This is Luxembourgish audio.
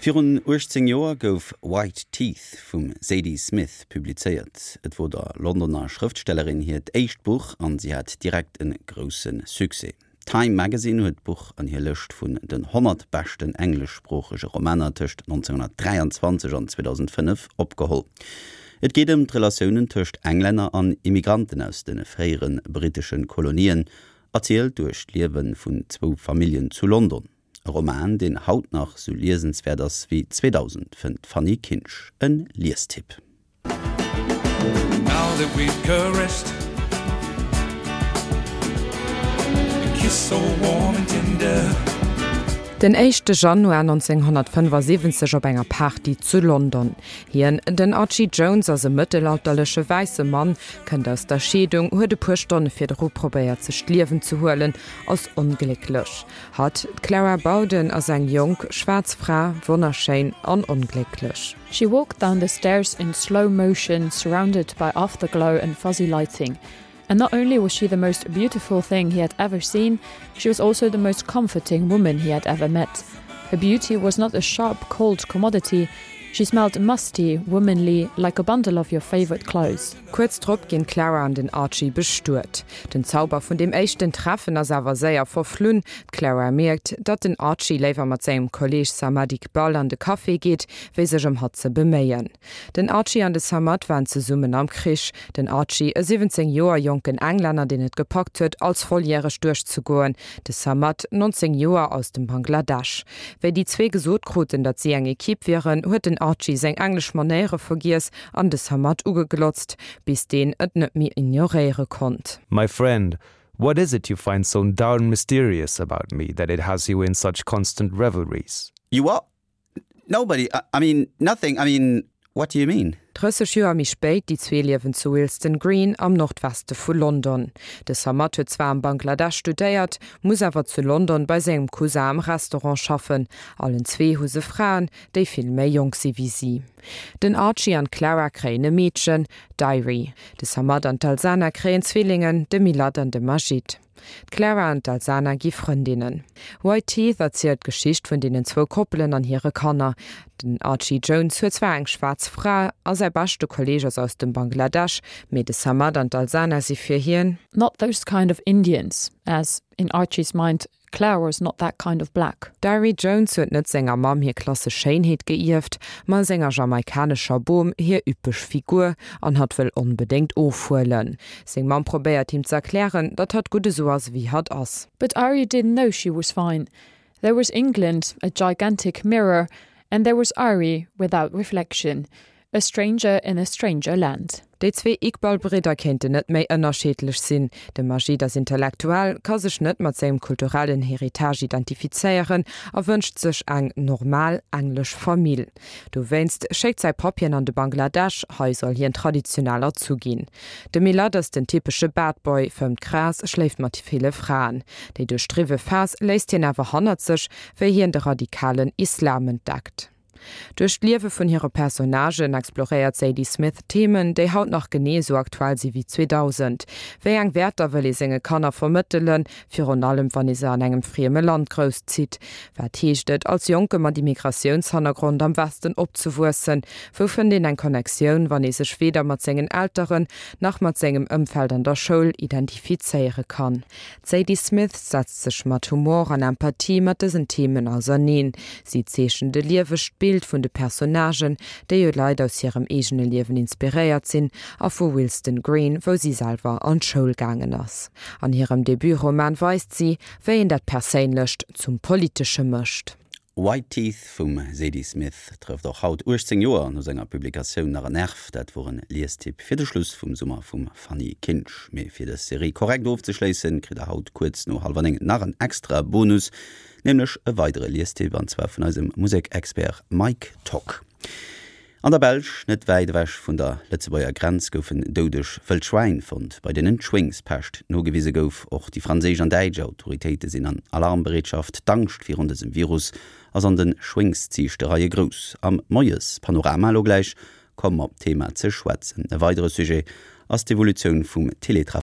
Virun 18 Joer gouf White Teeth vum Zadie Smith publizéiert. Et wor der Londoner Schrëftstellerin hiert éischt Buch an si hat direkt e grousse Succès. Time Magazine huet d'Buch an hir Lëscht vun den 100 beschten engleschsproochege Romaner tëscht 1923 an 2005 opgeholl. Et geet ëm d'Relatiounen tëscht Englänner an Immigranten aus de fréiere brittesche Kolonien, erzielt duerch d'Liewe vun zwou Familljen zu London. E Roman, deen haut nach sou liesenswäert ass wéi 2000, fënnt d'Fanny Kinsch. E Liestipp. Den éischte Januar 1975 op enger Party zu London. Hien, den Archie Jones, ass e mëttelalterleche wäisse Mann, kënnt aus der Scheedung, huet e puer Stonne virdru probéiert sech d'Liewen ze huelen, ass onglécklech. Hatt, d'Clara Bowden, ass eng jonk, schwaarz Fra, wonnerschéin an onglécklech. She walked down the stairs in slow motion, surrounded by afterglow and fuzzy lighting. And not only was she the most beautiful thing he had ever seen, she was also the most comforting woman he had ever met. Her beauty was not a sharp, cold commodity, she smelled musty, womanly, like a bundle of your favorite clothes. Kuerz drop ginn d'Clara an den Archie bestuet. Den Zauber vun deem éischten Treffen ass awer séier verflunn. D'Clara mierkt, datt den Archie léiwer mat sengem Kolleeg Samad Iqbal an de Café geet, wéi sech ëm hatt ze beméien. Den Archie an de Samad waren zesummen am Krich. Den Archie, e 17 Joer jonken Englänner, deen et gepackt huet, als volljäreg duerchzegoen, de Samad, 19 Joer, aus dem Bangladesch. Wéi déi zwee gesot kruten, datt si eng Ekipp wieren, huet den Archie seng englesch Manéiere vergiess an de Samad ugeglotzt, bis deen et net méi ignoréiere konnt. My friend, what is it you find so darn mysterious about me that it has you in such constant revelries? You what? Nobody, I mean nothing, I mean what do you mean? 30 Joer méi spéit, déi zwee liewen zu Willesden Green am Nordweste vu London. De Samad huet zwar am Bangladesch studéiert, muss awer zu London bei sengem Cousin am Restaurant schaffen. Allen zwee hu se Fraen, déi vill méi jonk si wéi si. Den Archie an d'Clara kréien e Meedchen, d'Irie. De Samad an d'Alsana kréien Zwillingen, de Milad an de Majid. D'Clara an d'Alsana gi Frëndinnen. White Teeth erzielt d'Geschicht vun deenen zwou Koppelen an hire Kanner. Den Archie Jones huet zwar eng schwaarz Fra a säi beschte Kolleeg ass aus dem Bangladesch, mee de Samad an d'Alsana si fir hien. Not those kind of Indians, as, in Archie's mind, Clara's not that kind of black. D'Irie Jones huet net senger Mamm hir klassesch Schéinheet geierft, ma senger jamaikanescher Bom hir üppeg Figur, an hatt wëll onbedéngt ofhuelen. Seng Mamm probéiert him z'erklären, datt hatt gutt esou ass ewéi hatt ass. But Irie didn't know she was fine. There was England, a gigantic mirror, and there was Irie without reflection. A stranger in a stranger land. Déi zwee Iqbal-Bridder kéinten net méi ënnerscheedlech sinn. De Majid ass Intellektuell, ka sech net mat sengem kulturellen Héritage identifizéieren a wënscht sech eng normal englesch Famill. Dowéinst schéckt säi Papp hien an de Bangladesch, hei soll hien traditionell erzu ginn. De Milad ass den typesche Bad Boy, fëmmt Gras, schléift mat ville Fraen. Déi duerchdriwwe Phas léisst hien awer hannert sech, wéi hien de radikalen Islam entdeckt. Duerch d'Liewe vun hire Personnagen exploréiert d'Zadie Smith Themen, déi haut nach genee esou aktuell si wéi 2000. Wéi eng Wäerter wëll ee senge Kanner vermëttelen, virun allem wann ee se an engem frieme Land grousszitt? Wat heescht et, als Jonke mat Immigratiounshannergrond am Westen opzewuessen? Wou fënnt een eng Connectioun, wann ee sech weder mat sengen Elteren nach mat sengem Ëmfeld an der Schoul identifizéiere kann? D'Zadie Smith setzt sech mat Humor an Empathie mat dësen Themen auserneen. Si zeechent e liewegt Bild vun de Personnagen, déi u Leit aus hirem eegene Liewen inspiréiert sinn, a vu Willesden Green, wou si selwer an d'Schoul gaangen ass. An hirem Debutroman weist si, wéi een dat Perséinlecht zum Politesche mécht. White Teeth vum Zadie Smith trëfft och haut, 18 Joer no senger Publikatioun, nach en Nerv. Dat wor en Liestipp fir de Schluss vum Summer vum Fanny Kinsch. Mee fir dës Serie korrekt ofzeschléissen, kritt der haut kuerz no hallwer 9 nach en extra Bonus, nämlech e weidere Liestipp, an zwar vun eisem Musekexpert Mike Tock. An der Belsch, net wäit ewech vun der Lëtzebuerger Grenz, goufen doudeg wëll Schwäin fonnt, bei deenen d'Schwéngspescht nogewise gouf. Och déi franséisch an däitsch Autoritéite sinn an Alarmbereetschaft. D'Angscht virun dësem Virus ass an de Schwéngsziichtereie grouss. Am Moies-Panorama elo gläich komme mer op d'Thema ze schwätzen. E weidere Sujet ass d'Evolutioun vum Teletravail.